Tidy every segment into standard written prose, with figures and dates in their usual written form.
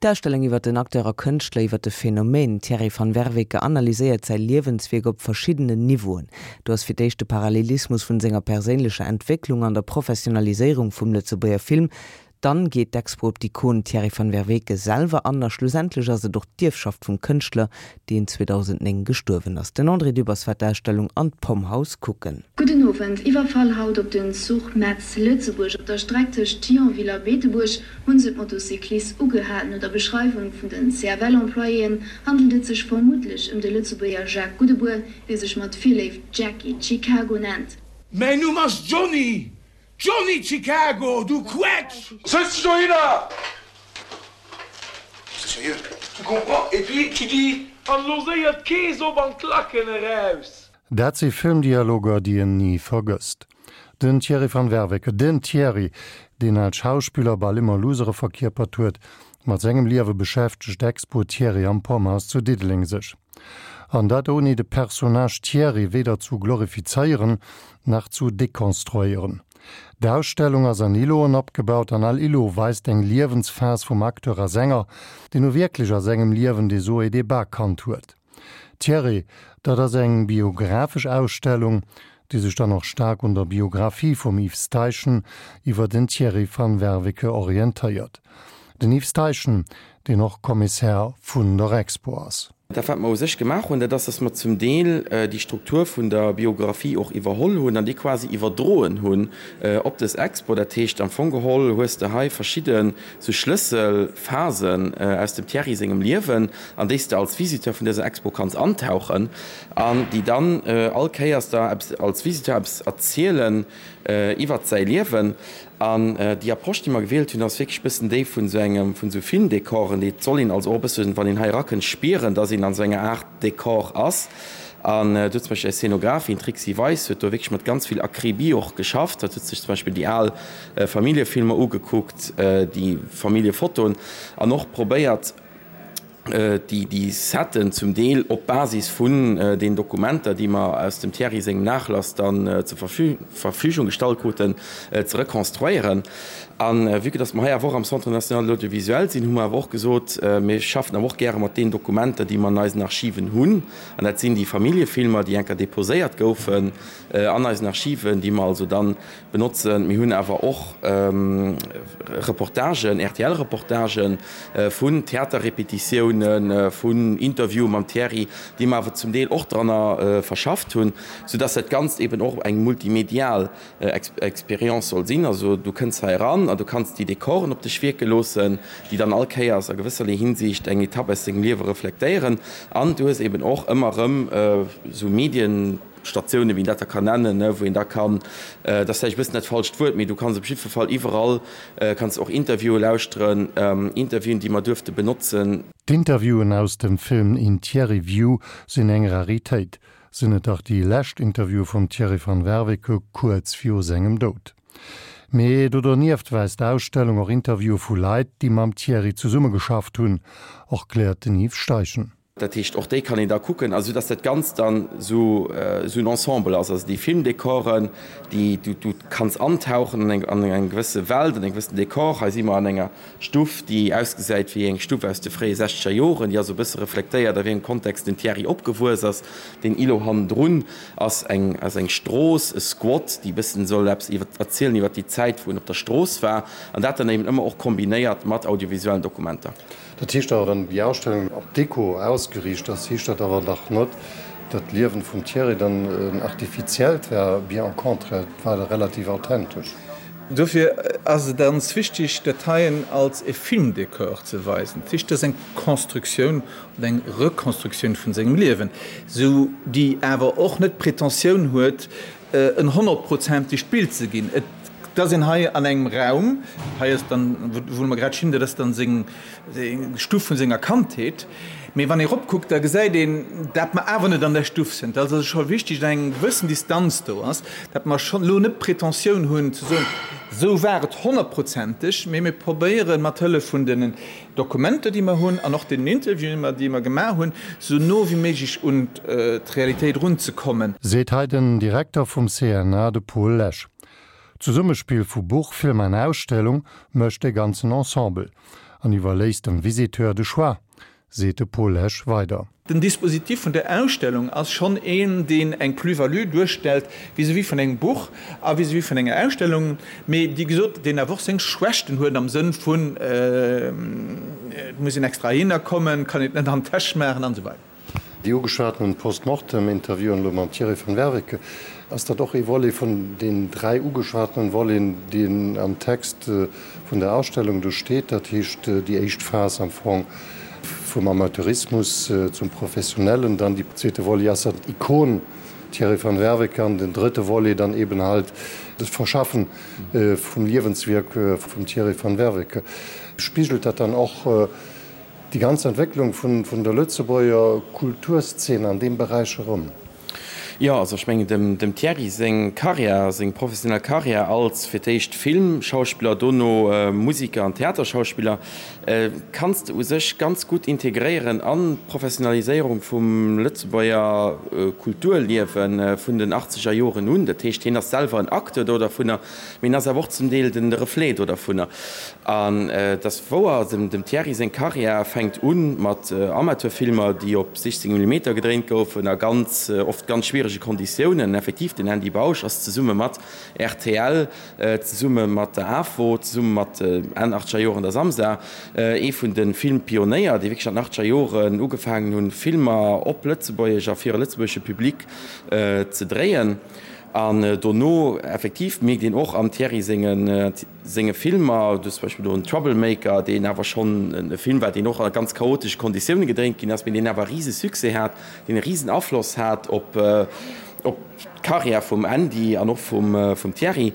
D'Ausstellung iwwer den Acteur a Kënschtler, iwwer de Phänomen Thierry van Werveke analyséiert säi Liewenswierk op verschiddenen Niveauen. Do ass fir d'éischt de Parallelismus vun senger perséinlecher Entwécklung an der Professionaliséierung vum Lëtzebuerger Film, Dann geet d'Expo op d'Ikon Thierry van Werveke selwer an a schlussendlech ass et och d'Ierfschaft vum Kënschtler, deen 2009 gestuerwen ass. Den André Dübbers war d'Ausstellung an d'Pomhouse kucken. Gudden Owend. Iwwerfall haut op den Zuch Metz-Lëtzebuerg. Op der Streck tëscht Thionville a Beetebuerg hunn se d'Motocyclist ugehal. No der Beschreiwung vun den CFL-Employéen handelt et sech vermuttlech ëm de Lëtzebuerger Jacques Goudebour, dee sech mat Virléift Jackie Chicago nennt. Mäin Numm ass Johnny! Johnny Chicago, du Quetsch! Sëtz dech dohinner! Sérieux, tu comprends? Et puis tu dis. An lo séier d'Kees op an d'Lacken eraus! Dat si Filmdialoger, déi een ni vergësst. Den Thierry van Werveke, den Thierry, deen als Schauspiller bal ëmmer Loosere verkierpert huet, mat sengem Liewe beschäftegt d'Expo Thierry am Pomhouse zu Diddeleng sech. An dat ouni de Personnage Thierry weder zu glorifizéieren, nach zu dekonstruéieren. D'Ausstellung ass an Iloen opgebaut an all Ilo weist eng Liewensphas vum Acteur a Sänger, deen nu wierklech a sengem Liewen des Hauts et des Bas kannt huet. Thierry, dat ass eng biographesch Ausstellung, déi sech dann och staark un der Biographie vum Yves Steichen iwwer den Thierry van Werveke orientéiert. Den Yves Steichen, deen och Kommissär vun der Expo ass. Dat wat mer u sech gemaach hunn, dat ass, dass mer zum Deel déi Struktur vun der Biographie och iwwerholl hunn an déi quasi iwwerdroen hunn op dës Expo. Dat heescht, am Fong geholl hues de hei verschidde sou Schlësselphasen aus dem Thierry sengem Liewen, an déi s de als Visiteur vun dëser Expo kanns antauchen an déi dann all Kéiers der eppes als Visiteur eppes erzielen iwwert säi Liewen. An déi Approche, déi mer gewielt hunn, ass wierklech e bëssen déi vun esou engem, vun esou Filmdekoren. Et soll een also och e bëssen, wann een hei erakënnt, spieren, dass een an esou enger Aart Dekor ass. An do huet zum Beispill eis Szenografin, d'Trixi Weis, huet do wierklech mat ganz vill Akribie och geschafft. Hatt huet sech zum Beispill déi al Familljefilmer ugekuckt, déi Familljefotoen an och probéiert, déi Setten zum Deel op Basis vun den Dokumenter, déi mer aus dem Thierry sengem Nachlass dann zur Verfügung gestallt kruten, ze rekonstruéieren. A vue que dass mer hei awer och am Centre national de l'audiovisuel sinn, hu mer awer och gesot, mir schaffen awer och gäre mat deenen Dokumenter, déi mer an eisen Archiven hunn. An dat sinn déi Familljefilmer, déi enker déposéiert goufen an eisen Archiven, déi mer also dann Benotzen. Mir hunn awer och Reportagen, RTL-Reportagen vun Theaterrepetitiounen, vun Interviewen mam Thierry, déi mer awer zum Deel och dranner verschafft hunn, soudass dat Ganzt eben och eng multimedial Experience soll sinn. Also du kënns hei eran an du kanns déi Dekoren op dech wierke loossen, déi dann all Kéiers a gewësserlee Hinsicht eng Etapp aus dengem Liewe reflektéieren. An du hues eben och ëmmer erëm esou Medien, Statiounen, wéi een dat da kann nennen, wou een da kann, dat ass vläicht e bëssen dat falscht Wuert, mee du kanns op jiddwer Fall iwwerall kanns och Interviewe lauschteren, Interviewen, déi mer duerfte benotzen. D'Interviewen aus dem Film In Thierry View sinn eng Raritéit, sinn et dach déi lescht Interviewe vum Thierry van Werveke kuerz viru sengem Doud. Mee do donieft weist d'Ausstellung och Interviewe vu Leit, déi mam Thierry zesummegeschafft hunn, erkläert den Yves Steichen. Dat heescht, och déi kann een da kucken, a sou dass dat Ganzt dann esou en Ensemble ass, also déi Filmdekoren, déi du du kanns antauchen an eng an eng gewësse Welt, an e gewëssen Dekor. Hei si mer an enger Stuff, déi ausgesäit wéi eng Stuff aus de fréie sechzeger Joren, déi also e bësse reflektéiert, a wéi engem Kontext den Thierry opgewuess ass. Deen Îlot hannendrun ass eng ass eng Strooss, e Squat, déi e bëssen soll eppes iwwer erzielen iwwer déi Zäit, wou en op der Strooss war, an dat dann eben ëmmer och kombinéiert mat audiovisuellen Dokumenter. Dat heescht awer, wann déi Ausstellung op Deko ausgeriicht ass, heescht dat awer dach net, datt d'Liewen vum Thierry dann en artifiziellt war, bien au contraire, et war relativ authentesch. Dofir ass et ganz wichtig, dat heien als e Filmdekor ze weisen. Dat heescht, dat ass eng Constructioun oder eng Reconstructioun vun sengem Liewen, sou déi awer och net d'Pretentioun huet, en honnertprozentegt Bild ze ginn. Et ass een hei an engem Raum, hei ass dann, wou mer grad stinn, dat ass dann seng Stuff vun senger Kandheet. Mee wann ee eropkuckt, da gesäit een, dat mer awer net an där Stuff sinn. Dat ass also scho wichteg, datt eng gewëssen Distanz do ass, dat mer schonn elo net d'Pretentioun hunn ze soen, esou war et honnertprozenteg, mee mir probéieren mat Hëllef vun den Dokumenter, déi mer hunn, an och deenen Interviewen, déi mer gemaach hunn, esou no wéi méiglech un d'Realitéit erunzekommen. Seet hei den Direkter vum CNA, de Paul Lesch. D'Zesummespill vu Buch, Film an Ausstellung mécht de ganzen Ensemble. An iwwerléisst dem Visiteur de Choix, seet de Paul Lesch weider. Den Dispositif vun der Ausstellung ass schonn een, deen eng Plus-value duerstellt vis-à-vis vun engem Buch a vis-à-vis vun enger Ausstellung, mee déi gesot, deen awer och seng Schwächten huet am Sënn vun, et muss een extra heihinner kommen, kann een et net an d'Täsch maachen an esou weider. Déi ugeschwatenen Post-Mortem-Interviewen elo mam Thierry van Werveke, ass dat och ee Volet vun den 3 ugeschwatenen Voleten, deen am Text vun der Ausstellung do steet? Dat heescht déi éischt Phas am Fong vum Amateurismus zum Professionellen, dann déi zweete Volet ass dann d'Ikon Thierry van Werveke an den drëtte Volet dann eben halt das Verschaffen vum Liewenswierk vum Thierry van Werveke. Spigelt dat dann och Déi ganz Entwécklung vun der Lëtzebuerger Kulturszene an deem Beräich erëm. Jo, also ech mengen dem Thierry seng Karriär, seng professionell Karriär als fir d'éischt Filmschauspiller, dono Musiker an Theaterschauspiller, kanns de u sech ganz gutt integréieren an d'Professionaliséierung vum Lëtzebuerger Kulturliewe vun den achtzeger Joren un. Dat heescht, hien ass selwer en Acteur do dervunner, mee en ass awer och zum Deel de Reflet do dervunner. An et ass wouer, dem Thierry seng Karriär fänkt u mat Amateurfilmer, déi op 16 Millimeter gedréint goufen a ganz oft ganz schwierege Konditiounen. Effektiv, den Andy Bausch ass zesumme mat rtl, zesumme mat der AFO, zesumme mat Enn achtzeger Joren der Samsa, ee vun de Filmpionéier, déi wierklech an den achtzeger Joren ugefaangen hunn, Filmer op Lëtzebuergesch a fir e lëtzebuergesche Public ze dréien. An dono effektiv mierkt een och am Thierry sengen senge Filmer, du hues zum Beispill do en Troublemaker, deen awer schonn e Film war, deen och a ganz chaotesche Konditioune gedréint ginn ass, mee deen awer e rise Succès hat, deen e risen Afloss hat op op d'Karriär vum Andy an och vum vum Thierry.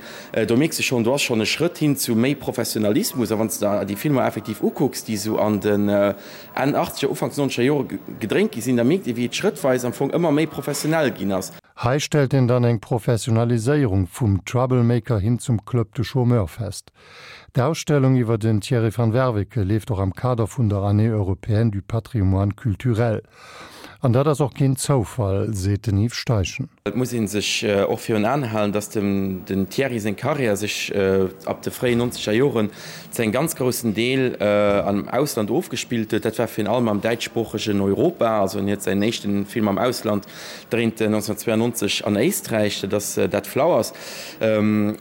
Do mierks de schonn, do ass schonn e Schrëtt hin zu méi Professionalismus. A wann s de der déi Filmer effektiv ukucks, déi esou an den Enn achtzeger, Ufanks nonzeger Jore gedréint gi sinn, da mierkt ee wéi et schrëttweis am Fong ëmmer méi professionell ginn ass. Hei stellt een dann eng Professionaliséierung vum Troublemaker hin zum Club de Chômeurs fest. D'Ausstellung iwwer den Thierry van Werveke leeft och am Kader vun der Année européenne du patrimoine culturel. An dat ass och keen Zoufall, seet den Yves Steichen. Et muss ee sech och virun Aen halen, datt dem den Thierry seng Karriär sech ab de fréien nonzeger Joren zu engem ganz groussen Deel am Ausland ofgespillt huet. Dat war virun allem am däitschsproochegen Europa. Also en huet säin éischten Film am Ausland dréint 1992 an Éisträich, dat ass Dead Flowers.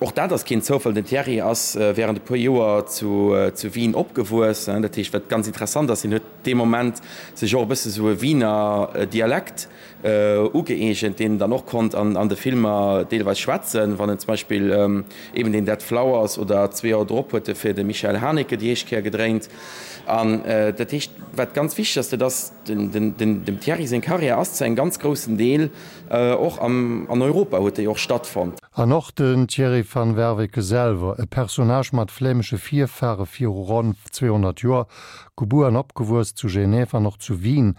Och dat ass keen Zoufall, den Thierry ass wärend e puer Joer zu Wien opgewuess. Dat heescht, wat ganz interessant ass, hien huet dee Moment sech och e bësse sou e Wiener Dialekt ugëeegent, deen en dann och konnt an de Filmer deelweis schwätzen, wann en zum Beispill eben deen Dead Flowers oder zwee Joer drop huet e fir de Michael Haneke déi éischt Kéier gedréint. An dat heescht, wat ganz wichteg ass, dat ass, Dem Thierry seng Karriär ass zu engem ganz groussen Deel och an Europa huet déi och stattfonnt. An och den Thierry van Werveke selwer, e Personnage mat flämesche Virfahre viru ronn 200 Joer, gebuer an opgewuess zu Genève an och zu Wien,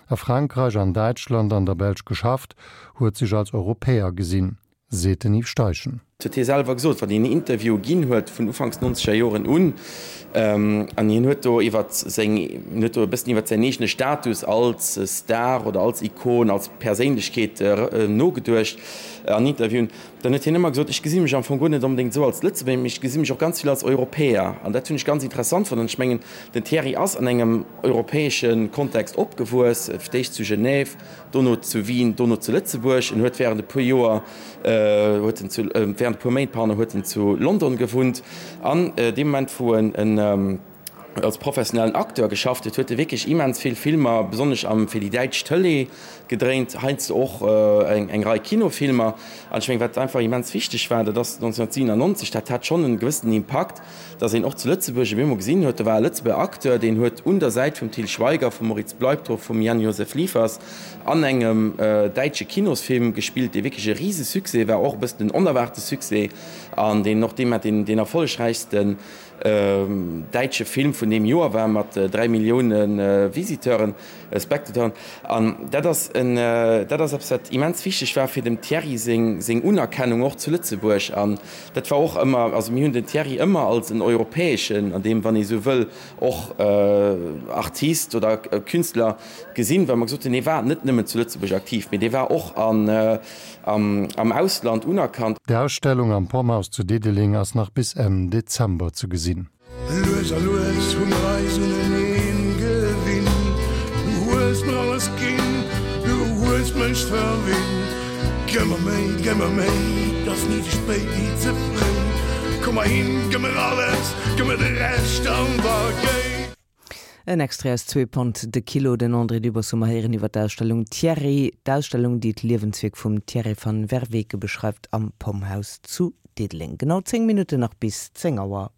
a Frankreich, an Däitschland, an der Belsch geschafft, huet sech als Europäer gesinn. Seet den Yves Steichen. Dat huet hie selwer gesot, wann hien Interviewe ginn huet vun ufanks nonzeger Joren un. An hien huet do iwwer seng, hien huet do e bëssen iwwer säin eegene Status als Star oder als Ikon, als Perséinlechkeet nogeduecht an Interviewen. Dann huet hien ëmmer gesot, ech gesi mech am Fong guer net onbedéngt esou als Lëtzebuerger, mee ech gesi mech och ganz vill als Europäer. An dat hunn ech ganz interessant fonnt. An ech mengen, den Thierry ass an engem europäesche Kontext opgewuess, fir d'éischt zu Genève, dono zu Wien, dono zu Lëtzebuerg. En huet während e puer Joer, huet en zu, während e puer Méint, pardon, huet en zu London gewunnt. An deem Moment, wou en en als professionellen Acteur geschafft huet, huet e wierklech immens vill Filmer, besonnesch am fir déi däitsch Tëlee gedréint, heiansdo och eng eng Rei Kinofilmer. An ech mengen, wat einfach immens wichteg war, dat ass 1997, dat hat schonn en gewëssenen Impakt, dass een och zu Lëtzebuerg op eemol gesinn huet, do war e Lëtzebuerger Acteur, deen huet un der Säit vum Til Schweiger, vum Moritz Bleibtreu, vum Jan-Josef Liefers an engem däitsche Kinosfilm gespillt, dee wierklech e Risesuccès war, och e bëssen en onerwaarte Succès an deen och deemat deen erfollegräichsten däitsche Film vun deem Joer war, mat 3 Millioune Visiteuren. Spectateuren. An dat ass en, dat ass eppes, wat immens wichteg war fir dem Thierry seng, seng Unerkennung och zu Lëtzebuerg. An dat war och ëmmer, also mir hunn den Thierry ëmmer als en europäeschen, an deem, wann ee sou wëll, och Artist oder Künstler gesinn, well mer gesot hunn, dee war net nëmmen zu Lëtzebuerg aktiv, mee dee war och an, am, am Ausland unerkannt. D'Ausstellung am Pomhouse zu Diddeleng ass nach bis Enn Dezember ze gesinn. Lues a lues hu mer eis uneneen gewinnt. Du hues mer alles ginn, du hues mech verwinnt. Gëmm mer méi, gëmm mer méi, 't ass ni ze spéit, ni ze fréi. Komm mer hin, gëmm mer alles, gëmm mer de Rescht an da géi. En Extrait aus Zwee Pond de Kilo, den André Dübbers hu mer héieren iwwer d'Ausstellung Thierry, d'Ausstellung déi d'Liewenswierk vum Thierry van Werveke beschreift am Pomhouse zu Diddeleng. Genau 10 Minutten nach bis 10 Auer.